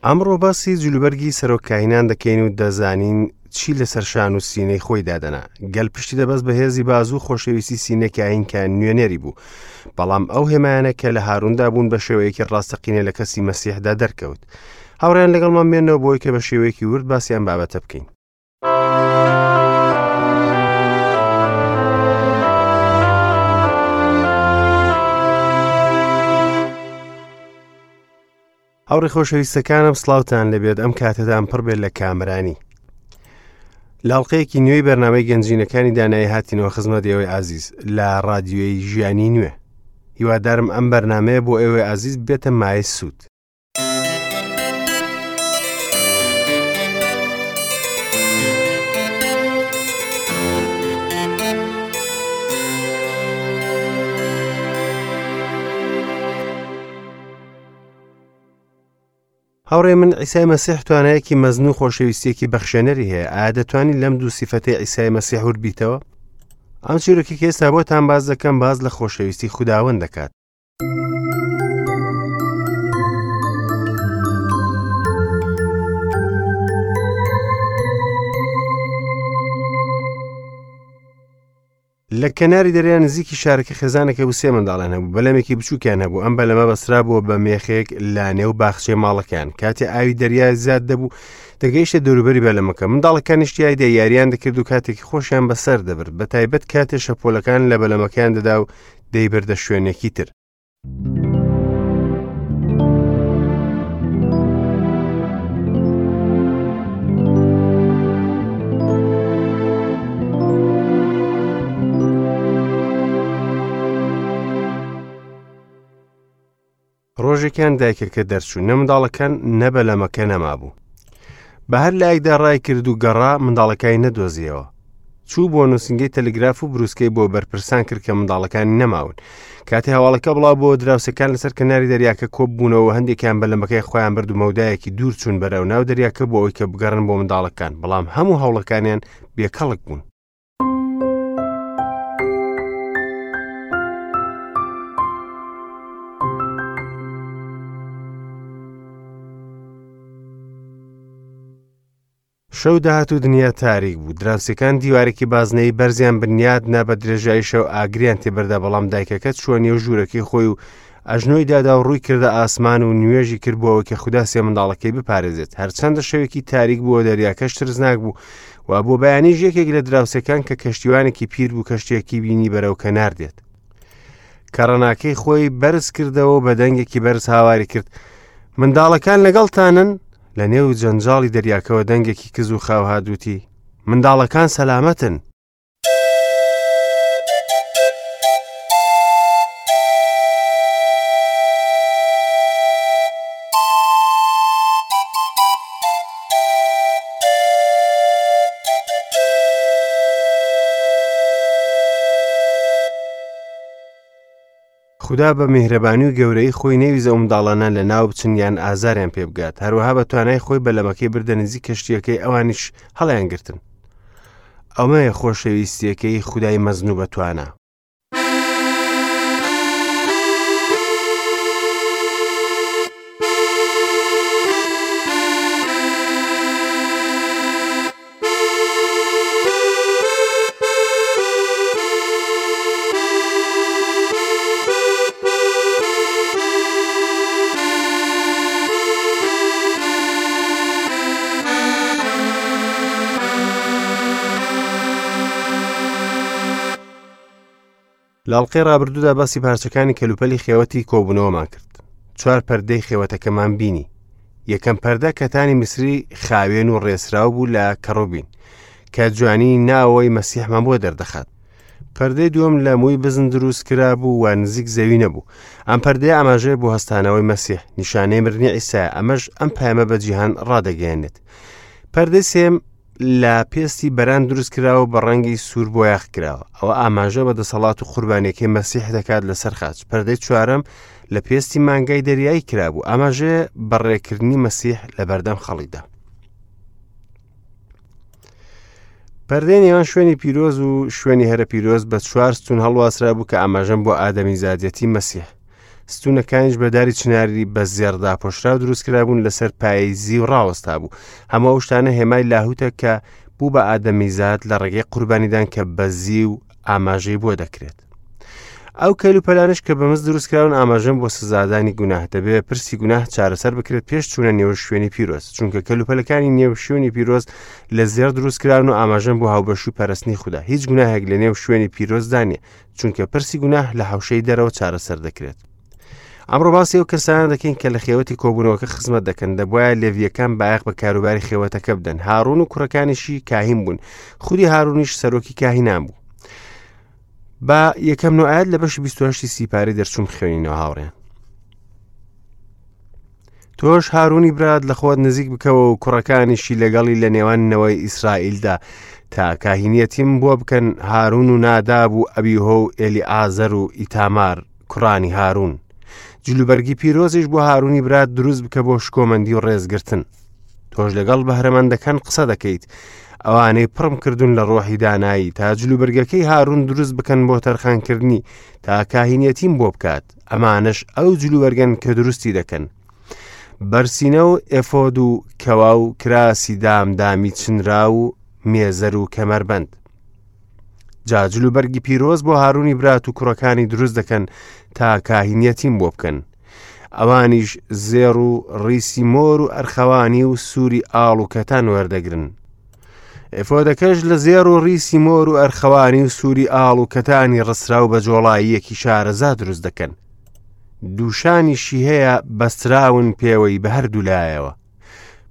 ئەمڕۆ باسی جلوبەرگی سەرۆک کاهینان دەکەین و دەزانین چی لەسەر شان و سینەی خۆی دادەنا. گەل پشتی دەبەست بە هێزی بازوو خۆشەویستی سینە کاهین کە نوێنەری بوو. بەڵام ئەو هێمایانە کە لە هاروندا بوون بە شێوەیەکی ڕاستەقینە لە کەسی مەسیحدا دەرکەوت. هاوڕێیان لەگەڵمان بێنەوە بۆی کە بە شێوەیەکی ورد باسی ئەم بابەتە بکەین. هاوڕێ خۆشەویستەکانم سڵاوتان لەبێت ئەم کاتەدان پڕ بێت لە کامرانی لاڵقەیەکی نوێی بەرنامەی گەنجینەکانی دانایی هاتینەوە خزمەت ئێوەی ئازیز لە ڕادیۆی ژیانی نوێ هیوادارم ئەم بەرنمەیە بۆ ئێوەی ئازیز بێتە مای سوود هاوڕێ من عیسای مەسیح توانایەکی مەزن و خۆشەویستیەکی بەخشێنەری هەیە ئایا دەتوانی لەم دوو سیفەتەی عیسای مەسیح ورد بیتەوە ئەم چیرۆکی کە ئێستا بۆتان باز دەکەم باز لە خۆشەویستی خوداوەند دەکات لە کەناری دەریا نزیکی شارەکە خێزانێک هەبوو سێ منداڵیان هەبوو بەلەمێکی بچووکیان هەبوو ئەم بەلەمە بەسرا بووە بە مێخێک لە نێو باخچەی ماڵەکەیان کاتێ ئاوی دەریا زیاد دەبوو دەگەیشتە دەوروبەری بەلەمەکە منداڵەکانیش تیایدا یاریان دەکرد و کاتێکی خۆشیان بەسەر دەبرد بە تایبەت کاتێ شەپۆلەکان لە بەلەمەکەیان دەدا و دەیبردە شوێنێکی تر. ڕۆژێکیان دایکەکە دەرچوو نە منداڵەکان نە بەلەمەکە نەمابوو بە هەر لایەکدا ڕای کرد و گەڕا منداڵەکانی نەدۆزیەوە چوو بۆ نووسنگەی تەلگراف و بروسکەی بۆ بەرپرسان کرد کە منداڵەکانی نەماون کاتی هەواڵەکە بڵاو بۆ دراوسەکان لەسەر کەناری دەریاکە کۆب بوونەوە هەندێکیان بەلەمەکەی خۆیان برد و مەودایەکی دوور چوون بەرەو ناو دەریاکە بۆ ئەوەی کە بگەڕن بۆ منداڵەکان بەڵام هەموو هەوڵەکانیان بێکەڵک بوون شەو دەهات و دنیا تاریک بوو دراوسێکان دیوارێکی بازنەی بەرزیان بنیاد نا بە درێژایی شەو ئاگریان تێبەردا بەڵام دایکەکە چووە نێو ژوورەکەی خۆی و ئەژنۆی دادا و ڕووی کردە ئاسمان و نوێژی کرد بۆ ئەوەی کە خودا سێ منداڵەکەی بپارێزێت هەرچەندە شەوێکی تاریک بووە دەریاکەش ترسناک بوو و بۆ بەیانیش یەکێک لە دراوسێکان کە کەشتیوانێکی پیر بوو کەشتیەکی بینی بەرەو کەنار دێت کەڕەناکەی خۆی بەرز کردەوە و بە دەنگێکی بەرز هاواری کرد منداڵەکان لەگەڵتانن لە نێو جەنجاڵی دەریاکەوە دەنگێکی کز و خاو هات وتی منداڵەکان سەلامەتن خودا بە میهرەبانی و گەورەیی خۆی نەیویست ئەو منداڵانە لە ناو بچن یان ئازاریان پێ بگات هەروەها بە توانای خۆی بەلەمەکەی بردە نزیک کەشتیەکەی ئەوانیش هەڵیان گرتن ئەمەیە خۆشەویستیەکەی خودای مەزن و بەتوانا. لە ئەڵقەی ڕابردوودا باسی پارچەکانی کەلوپەلی خێوەتی کۆبوونەوەمان کرد چوار پەردەی خێوەتەکەمان بینی یەکەم پەردە کەتانی میسری خاوێن و ڕێسراو بوو لە کەڕوبین کە جوانی ناوەوەی مەسیحمان بۆ دەردەخات پەردەی دووەم لە مووی بزن دروست کرا بوو و نزیک زەوی نەبوو ئەم پەردەیە ئاماژەیە بۆ هەستانەوەی مەسیح نیشانەی مردنی عیسا ئەمەش ئەم پەیامە بە جیهان ڕادەگەیەنێت پەردەی سێم لە پێستی بەران دروست کراوە بە ڕەنگی سوور بۆیاخ کراوە ئەوە ئاماژە بە دەسەڵات و قوربانیەکەی مەسیح دەکات لەسەر خاچ پەردەی چوارەم لە پێستی مانگای دەریایی کرابوو ئاماژەیە بە ڕێکردنی مەسیح لە بەردەم خەڵکدا پەردەی نێوان شوێنی پیرۆز و شوێنی هەرە پیرۆز بە چوار ستون هەڵواسرا بوو کە ئاماژەم بۆ ئادەمی زادەتی مەسیح. ستوونەکانیش بە داری چناری بە زێڕ داپۆشراو دروست کرابوون، لەسەر پایەی زیو ڕاوەستا بوو. هەموو ئەو شتانە هێمای لاهوتە کە بوو بە ئادەمیزاد لە ڕێگەی قوربانیدان کە بە زیو ئاماژەی بۆ دەکرێت. ئەو کەلوپەلانەش کە بە مس دروستکراون ئاماژەن بۆ سزادانی گوناه. دەبێت پرسی گوناه چارەسەر بکرێت پێش چوونە نێو شوێنی پیرۆز، چونکە کەلوپەلەکانی نێو شوێنی پیرۆز لە زێڕ دروستکراون و ئاماژەن بۆ هاوبەشی و پەرستنی خودا. هیچ گوناهێک لە نێو شوێنی پیرۆزدا نییە، چونکە پرسی گوناه لە حەوشەی دەرەوە چارەسەر دەکرێت. ئەمڕۆ باسی ئەو کەسانە دەکەین کە لە خێوەتی کۆبوونەوەکە خزمەت دەکەن. دەبوایە لێڤییەکان بایەخ بە کاروباری خێوەتەکە بدەن. هارون و کوڕەکانیشی کاهین بوون. خودی هارونیش سەرۆکی کاهینان بوو. با یەکەم نۆ ئاەت لە بەشی 28 سیپاری دەرچوون بخوێنینەوە هاوڕێن. تۆش هارونی برات لە خۆت نزیک بکەوە و کوڕەکانیشی لەگەڵی لە نێوان نەوەی ئیسرائیلدا تا کاهینیەتیم بۆ بکەن، هارون و ناداب و ئەبیهۆ و ئێلیعازەر و ئیتامار کوڕانی هارون. جلوبەرگی پیرۆزیش بۆ هارونی برات دروست بکە بۆ شکۆمەندی و ڕێزگرتن. تۆش لەگەڵ بەهرەمەندەکان قسە دەکەیت، ئەوانەی پڕم کردوون لە ڕۆحی دانایی، تا جلوبەرگەکەی هارون دروست بکەن بۆ تەرخانکردنی، تا کاهینیەتیم بۆ بکات. ئەمانەش ئەو جلوبەرگەن کە دروستی دەکەن، بەرسینە و ئێفۆد و کەوا و کراسی دامدامی چنراو و مێزەر و کەمەربەند. جا جلوبەرگی پیرۆز بۆ هارونی برات و کوڕەکانی دروست دەکەن تا کاهینیەتیم بۆ بکەن. ئەوانیش زێڕ و ڕیسی مۆر و ئەرخەوانی و سووری ئاڵ و کەتان وەردەگرن. ئێفۆدەکەش لە زێڕ و ڕیسی مۆر و ئەرخەوانی و سووری ئاڵ و کەتانی ڕسراو بە جۆڵاییەکی شارەزا دروست دەکەن. دووشانیشی هەیە بەستراون پێوەی بە هەردوو لایەوە.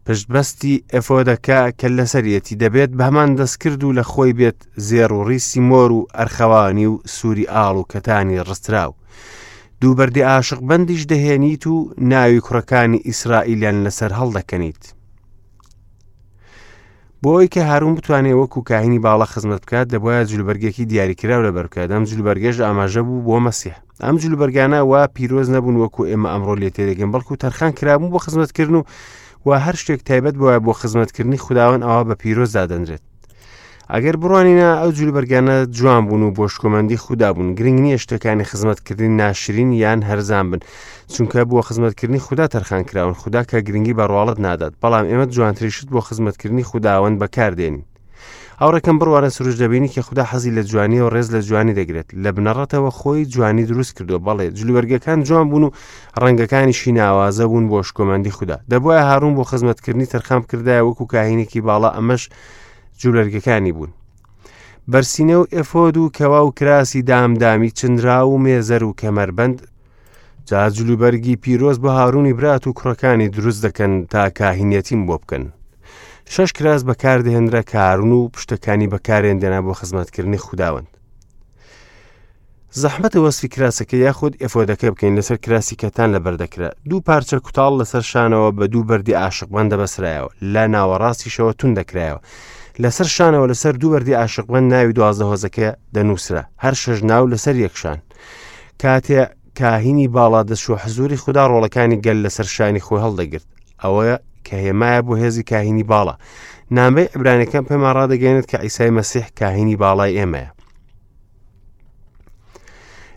پشتبەستی ئێفۆدەکە کە لەسەریەتی دەبێت بە هەمان دەستکرد و لە خۆی بێت، زێڕ و ڕیسی مۆر و ئەرخەوانی و سووری ئاڵ و کەتانی ڕستراو. دوو بەردی عاشق بەندیش دەهێنیت و ناوی کوڕەکانی ئیسرائیلیان لەسەر هەڵدەکەنیت. بۆ ئەوەی کە هارون بتوانێت وەکو کاهینی باڵا خزمەت بکات، دەبواە جلوبەرگێکی دیاریکراو لەبەر بکات. ئەم جلوبەرگەش ئاماژە بوو بۆ مەسیح. ئەم جلوبەرگانە وا پیرۆز نەبوون وەکو ئێمە ئەمڕۆ لێ تێدەگەین، بەڵکو تەرخان کرابوون بۆ خزمەتکردن و هەر شتێک تایبەت بووە بۆ خزمەتکردنی خوداوەند ئەوە بە پیرۆز دادەنرێت. ئەگەر بڕوانینە ئەو جلوبەرگانە جوان بوون و بۆ شکۆمەندی خودا بوون. گرنگ نییە شتەکانی خزمەتکردنی ناشرین یان هەرزان بن، چونکە بۆ خزمەتکردنی خودا تەرخان کراون. خودا کە گرنگی بە ڕواڵەت نادات، بەڵام ئێمە جوانترین شت بۆ خزمەتکردنی خوداوەند بەکاردێنین. هاوڕێکەم بڕوانە سروش دەبینی کە خودا حەزی لە جوانیە و ڕێز لە جوانی دەگرێت. لە بنەڕەتەوە خۆی جوانی دروست کردووە. بەڵێ جلوبەرگەکان جوان بوون و ڕەنگەکانیشی ناوازە بوون بۆ شکۆمەندی خودا. دەبوایە هارون بۆ خزمەتکردنی تەرخان بکردایە وەکو کاهینێکی باڵا، ئەمەش جلوبەرگەکانی بوون. بەرسینە و ئێفۆد و کەوا و کراسی دامدامی چنراو و مێزەر و کەمەربەند. جا جلوبەرگی پیرۆز بۆ هارونی برات و کوڕەکانی دروست دەکەن تا کاهینیەتیم بۆ بکەن. شەش کراس بەکاردەهێنرا کە هارون و پشتەکانی بەکارێندێنا بۆ خزمەتکردنی خوداوەند. زەحمەتە وەسفی کراسەکە یاخود ئێفۆدەکە بکەین. لەسەر کراسی کەتان لەبەر دەکرا. دوو پارچە کوتاڵ لەسەر شانەوە بە دوو بەردی عاشقبەند دەبەسرایەوە، لە ناوەڕاستیشەوە تون دەکرایەوە. لەسەر شانەوە لەسەر دوو بەردی عاشقبەند ناوی 12 هۆزەکە دەنووسرا، هەر شەش ناو لەسەر یەک شان. کاتێ کاهینی باڵا دەچووە حزوری خودا، ڕۆڵەکانی گەل لەسەر شانی خۆی هەڵدەگرت. ئەوە کە هێمایە بۆ هێزی کاهینی باڵا. نامەی عیبرانیەکان پێمان ڕادەگەیەنێت کە عیسای مەسیح کاهینی باڵای ئێمەیە.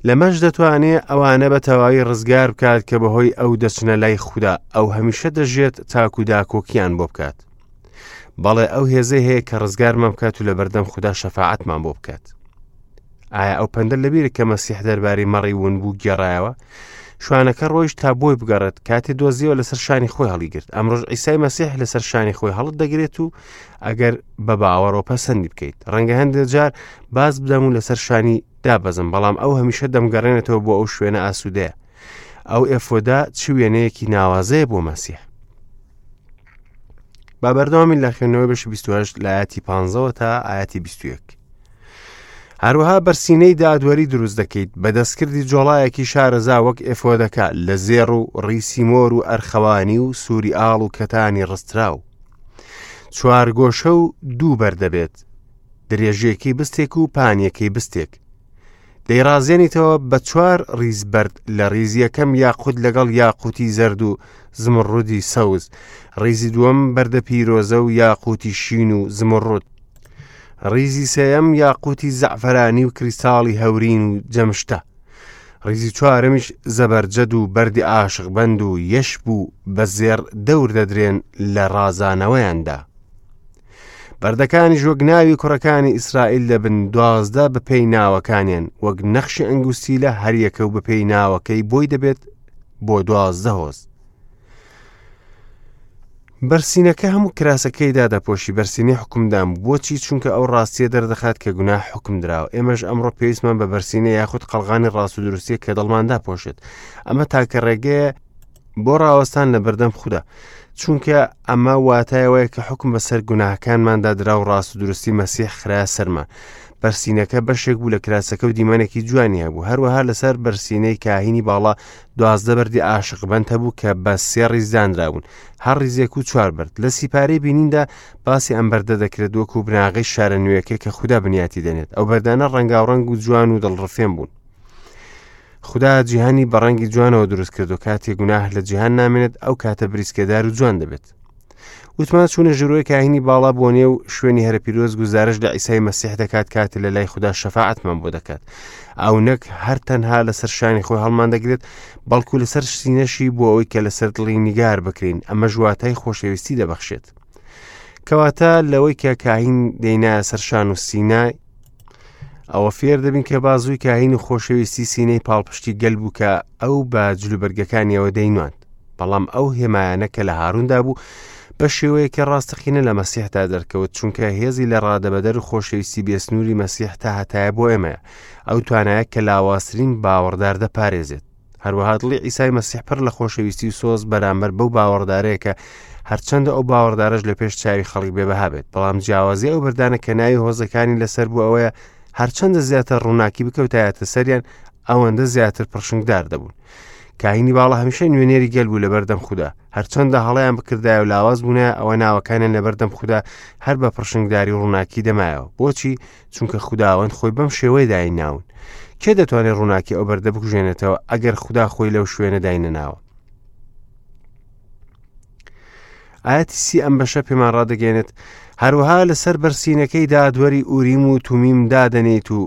لەمەش دەتوانێ ئەوانە بە تەواوی ڕزگار بکات کە بەهۆی ئەو دەچنە لای خودا. ئەو هەمیشە دەژێت تاکو داکۆکیان بۆ بکات. بەڵێ ئەو هێزەی هەیە کە ڕزگارمان بکات و لەبەردەم خودا شەفاعەتمان بۆ بکات. ئایا ئەو پەندە لەبیرە کە مەسیح دەربارەی مەڕی ون بوو گێڕایەوە؟ شوانەکە ڕۆیشت تا بۆی بگەڕێت، کاتێ دۆزیەوە لەسەر شانی خۆی هەڵیگرت. ئەمڕۆژ عیسای مەسیح لەسەر شانی خۆی هەڵت دەگرێت و ئەگەر بە باوەڕەوە پەسەندی بکەیت. ڕەنگە هەندێک جار باز بدەم و لەسەر شانی دابەزم، بەڵام ئەو هەمیشە دەمگەڕێنێتەوە بۆ ئەو شوێنە ئاسوودەیە. ئەو ئێفۆدا چ وێنەیەکی ناوازەیە بۆ مەسیح. با بەردەوامی لە خوێندنەوەی بەشی 28 لە ئاەتی 15 تا ئاەتی 21. هەروەها بەرسینەی دادوەری دروست دەکەیت بە دەستکردی جۆڵایەکی شارەزا وەک ئێفۆدەکە لە زێڕ و ڕیسی مۆر و ئەرخەوانی و سووری ئاڵ و کەتانی ڕستراو. چوار گۆشە و دوو بەر دەبێت، درێژیەکەی بستێک و پانیەکەی بستێک. دەیڕازێنیتەوە بە چوار ڕیز بەرد، لە ڕیزی یەکەم یاقوت لەگەڵ یاقوتی زەرد و زمڕودی سەوز، ڕیزی دووەم بەردە پیرۆزە و یاقوتی شین و زمڕود، ڕیزی سێیەم یاقوتی زەعفەرانی و کریستاڵی هەورین و جەمشتە. ڕیزی چوارەمیش زەبەرجەد و بەردی عاشقبەند و یەشب و بە زێڕ دەور دەدرێن لە ڕازانەوەیاندا. بەردەکانیش وەک ناوی کوڕەکانی ئیسرائیل دەبن دوازدە بەپێی ناوەکانیان وەک نەخشی ئەنگوستیلە هەریەکە و بەپێی ناوەکەی بۆی دەبێت بۆ دوازدە هۆز. بەرسینەکە هەموو کراسەکەی دادەپۆشی بەرسینەی حکومدان بوو بۆچی چونکە ئەو ڕاستیە دەردەخات کە گوناه حکم دراوە ئێمەش ئەمڕۆ پێویستمان بە بەرسینە یاخود قەڵغانی ڕاست و دروستیە کە دڵمان داپۆشێت ئەمە تاکە ڕێگەیە بۆ ڕاوەستان لە بەردەم خودا چونکە ئەمە واتایەوەیە کە حکم بەسەر گوناهەکانماندا درا و ڕاست و دروستی مەسیح خرا سەرمان بەرسینەکە بەشێک بوو لە کراسەکە و دیمەنێکی جوانی هەبوو هەروەها لەسەر بەرسینەی کاهینی باڵا دوازدە بەردی عاشقبەند هەبوو کە بە سێ ڕیز دانرابوون هەر ڕیزێک و چوار بەرد لە سیپارەی بینیندا باسی ئەم بەردە دەکرێت وەکو بناغەی شارە نوێیەکە کە خودا بنیاتی دەنێت ئەو بەردانە ڕەنگاوڕەنگ و جوان و دڵڕفێن بوون خودا جیهانی بە ڕەنگی جوانەوە دروست کرد و کاتێ گوناه لە جیهان نامێنێت ئەو کاتە بریسکەدار و جوان دەبێت وتمان چوونە ژوورەوەی کاهینی باڵا بۆ نێو شوێنی هەرە پیرۆز گوزارش لە عیسای مەسیح دەکات کاتێ لە لای خودا شەفاعەتمان بۆ دەکات ئەو نەک هەر تەنها لەسەر شانی خۆی هەڵمان دەگرێت بەڵکو لەسەر سینەشی بۆ ئەوەی کە لەسەر دڵی نیگار بکرین ئەمە ژواتای خۆشەویستی دەبەخشێت کەواتە لەوەی کە کاهین دەینایە سەر شان و سینە ئەوە فێر دەبین کە بازووی کاهین و خۆشەویستی سینەی پاڵپشتی گەل بوو کە ئەو بە جلوبەرگەکانیەوە دەینواند بەڵام ئەو هێمایانە کە لە هاروندا بوو بە شێوەیەکی ڕاستەقینە لە مەسیحدا دەرکەوت چونکە هێزی لە ڕادەبەدەر و خۆشەویستی بێسنووری مەسیح تا هەتایە بۆ ئێمەیە ئەو توانایە کە لاوازترین باوەڕدار دەپارێزێت هەروەها دڵی عیسای مەسیح پڕ لە خۆشەویستی و سۆز بەرامبەر بەو باوەڕدارەیە کە هەرچەندە ئەو باوەڕدارەش لە پێش چاوی خەڵک بێبەها بێت بەڵام جیاوازی ئەو بەردانە کە ناوی هۆزەکانی لەسەر بوو ئەوەیە هەرچەندە زیاتر ڕووناکی بکەوتایەتە سەریان ئەوەندە زیاتر پڕشنگدار دەبوون کاهینی باڵا هەمیشە نوێنەری گەل بوو لەبەردەم خودا هەرچەندە هەڵیان بکردایە و لاواز بوونە ئەوە ناوەکانیان لەبەردەم خودا هەر بە پڕشنگداری و ڕووناکی دەمایەوە بۆچی چونکە خوداوەند خۆی بەم شێوەیە دایناون کێ دەتوانێت ڕووناکی ئەو بەردە بکوژێنێتەوە ئەگەر خودا خۆی لەو شوێنە داینەناوە ئاەتی سی ئەم بەشە پێمان ڕادەگەێنێت هەروەها لەسەر بەرسینەکەی دادوەری ئوریم و تومیم دادەنێیت و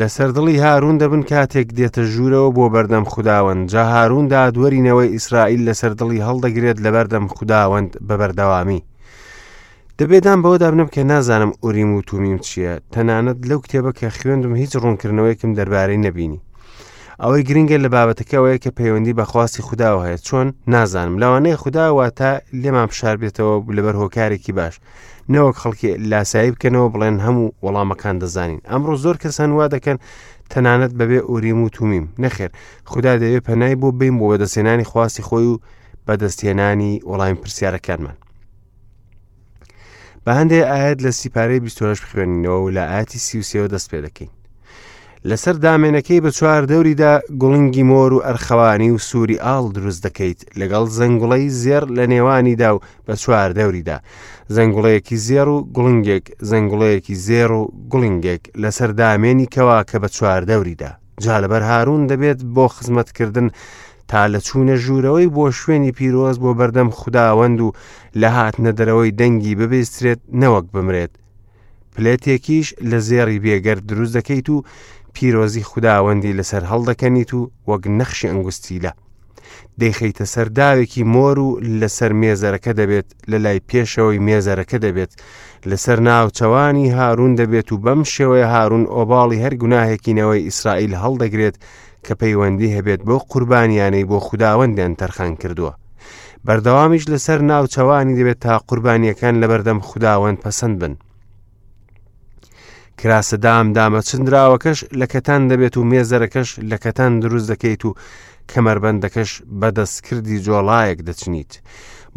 لەسەر دڵی هارون دەبن کاتێک دێتە ژوورەوە بۆ بەردەم خوداوەند جا هارون دادوەری نەوەی ئیسرائیل لەسەر دڵی هەڵدەگرێت لەبەردەم خوداوەند بە بەردەوامی دەبێ دان بەوەدا بنێم کە نازانم ئوریم و تومیم چییە تەنانەت لەو کتێبە کە خوێندم هیچ ڕوونکردنەوەیەکم دەربارەی نەبینی ئەوەی گرنگە لە بابەتەکەەوەیە کە پەیوەندی بە خواستی خودداوە هەیە چۆن نازانم لەوانەیە خودا واتە لێمان فشار بێتەوە لەبەر هۆکارێکی باش نەوەک خەڵکی لاسایی بکەنەوە بڵێن هەموو وەڵامەکان دەزانین ئەمڕۆ زۆر کەسان وا دەکەن تەنانەت بەبێ ئوریم و تومیم نەخێر خودا دەوێت پەنای بۆ بین بۆ بەدەستێنانی خواستی خۆی و بەدەستهێنانی وەڵامی پرسیارەکانمان بە هەندێک ئاەت لە سیپارەی 28 بخوێنینەوە و لە ئاەتی 33 دەست پێ دەکەین لەسەر دامێنەکەی بە چوار دەوریدا گوڵنگی مۆر و ئەرخەوانی و سووری ئاڵ دروست دەکەیت لەگەڵ زەنگوڵەی زێڕ لە نێوانیدا و بە چوار دەوریدا زەنگوڵەیەکی زێڕ و گوڵنگێک زەنگوڵەیەکی زێڕ و گوڵنگێک لەسەر دامێنی کەوا کە بە چوار دەوریدا جا لەبەر هارون دەبێت بۆ خزمەتکردن تا لە چوونە ژوورەوەی بۆ شوێنی پیرۆز بۆ بەردەم خوداوەند و لە هاتنە دەرەوەی دەنگی ببیسترێت نەوەک بمرێت پلێتێکیش لە زێڕی بێگەرد دروست دەکەیت و پیرۆزی خوداوەندی لەسەر هەڵدەکەنیت و وەک نەخشی ئەنگوستیلە دەیخەیتە سەر داوێکی مۆر و لەسەر مێزەرەکە دەبێت لە لای پێشەوەی مێزەرەکە دەبێت لەسەر ناوچەوانی هارون دەبێت و بەم شێوەیە هارون ئۆباڵی هەر گوناهێکی نەوەی ئیسرائیل هەڵدەگرێت کە پەیوەندی هەبێت بۆ قوربانیانەی بۆ خوداوەندیان تەرخان کردووە. بەردەوامیش لەسەر ناوچەوانی دەبێت تا قوربانیەکان لەبەردەم خوداوەند پەسەند بن. کراسە دام دامە چندراوەکەش لە کەتان دەبێت و مێزەرەکەش لە کەتان دروست دەکەیت و کەمەربەندەکەش بە دەستکردی جۆڵایەک دەچنیت.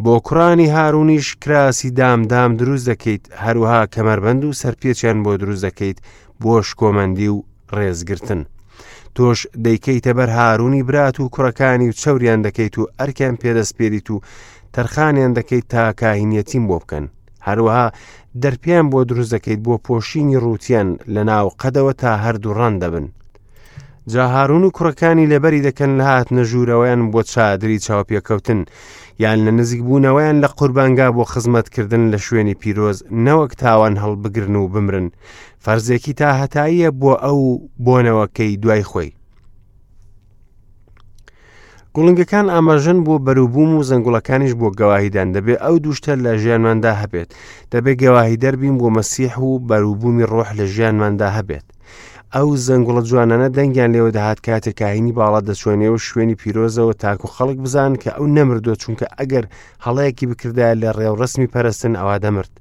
بۆ کوڕانی هارونیش کراسی دامدام دروست دەکەیت هەروەها کەمەربەند و سەرپێچیان بۆ دروست دەکەیت بۆ شکۆمەندی و ڕێزگرتن. تۆش دەیکەیتە بەر هارونی برات و کوڕەکانی و چەوریان دەکەیت و ئەرکیان پێدەسپێریت و تەرخانیان دەکەیت تا کاهینیەتیم بۆ بکەن. هەروەها دەرپیان بۆ دروست دەکەیت بۆ پۆشینی ڕووتیان لە ناو قەدەوە تا هەردوو ڕان دەبن. جا هارون و کوڕەکانی لەبەری دەکەن لە هاتنە ژوورەوەیان بۆ چادری چاوپێکەوتن یان لە نزیک بوونەوەیان لە قوربانگا بۆ خزمەتکردن لە شوێنی پیرۆز نەوەک تاوان هەڵبگرن و بمرن فەرزێکی تا هەتاییە بۆ ئەو بۆنەوەکەی دوای خۆی. گوڵنگەکان ئاماژەن بۆ بەروبووم و زەنگوڵەکانیش بۆ گەواهیدان. دەبێ ئەو دوو شتە لە ژیانماندا هەبێت. دەبێ گەواهیدەر بین بۆ مەسیح و بەروبوومی ڕۆح لە ژیانماندا هەبێت. ئەو زەنگوڵە جوانانە دەنگیان لێوە دەهات کاتێک کاهینی باڵا دەچووە نێو شوێنی پیرۆزەوە تاکو خەڵک بزانن کە ئەو نەمردووە چونکە ئەگەر هەڵەیەکی بکردایە لە ڕێوڕەسمی پەرستن ئەوا دەمرد.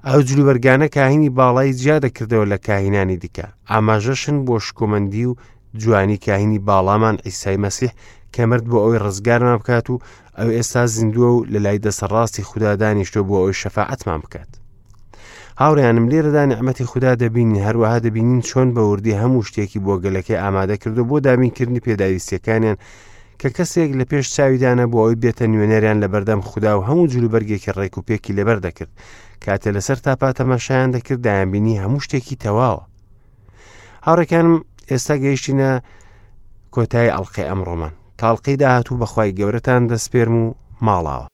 ئەو جلوبەرگانە کاهینی باڵای جیا دەکردەوە لە کاهینانی دیکە. ئاماژەشن بۆ شکۆمەندی و جوانی کاهینی باڵامان عیسای مەسیح کە مرد بۆ ئەوەی ڕزگارمان بکات و ئەو ئێستا زیندووە و لە لای دەسەڕاستی خودا دانیشتووە بۆ ئەوەی شەفاعەتمان بکات. هاوڕێیانم لێرەدا نیعمەتی خودا دەبینین هەروەها دەبینین چۆن بە وردی هەموو شتێکی بۆ گەلەکەی ئامادە کردو بۆ دابینکردنی پێداویستیەکانیان کە کەسێک لە پێش چاویدانە بۆ ئەوی بێتە نوێنەریان لە بەردەم خودا و هەموو جلوبەرگێکی ڕێک و پێکی لەبەر دەکرد کاتێ لەسەر تاپا تەماشایان دەکرد دایانبینی هەموو شتێکی تەواوە هاوڕێکانم ئێستا گەیشتینە کۆتایی ئەڵلقەی ئەمڕۆمان تاڵقی داهاتوو بەخوای گەورەتان دەسپێرم و ماڵاوە.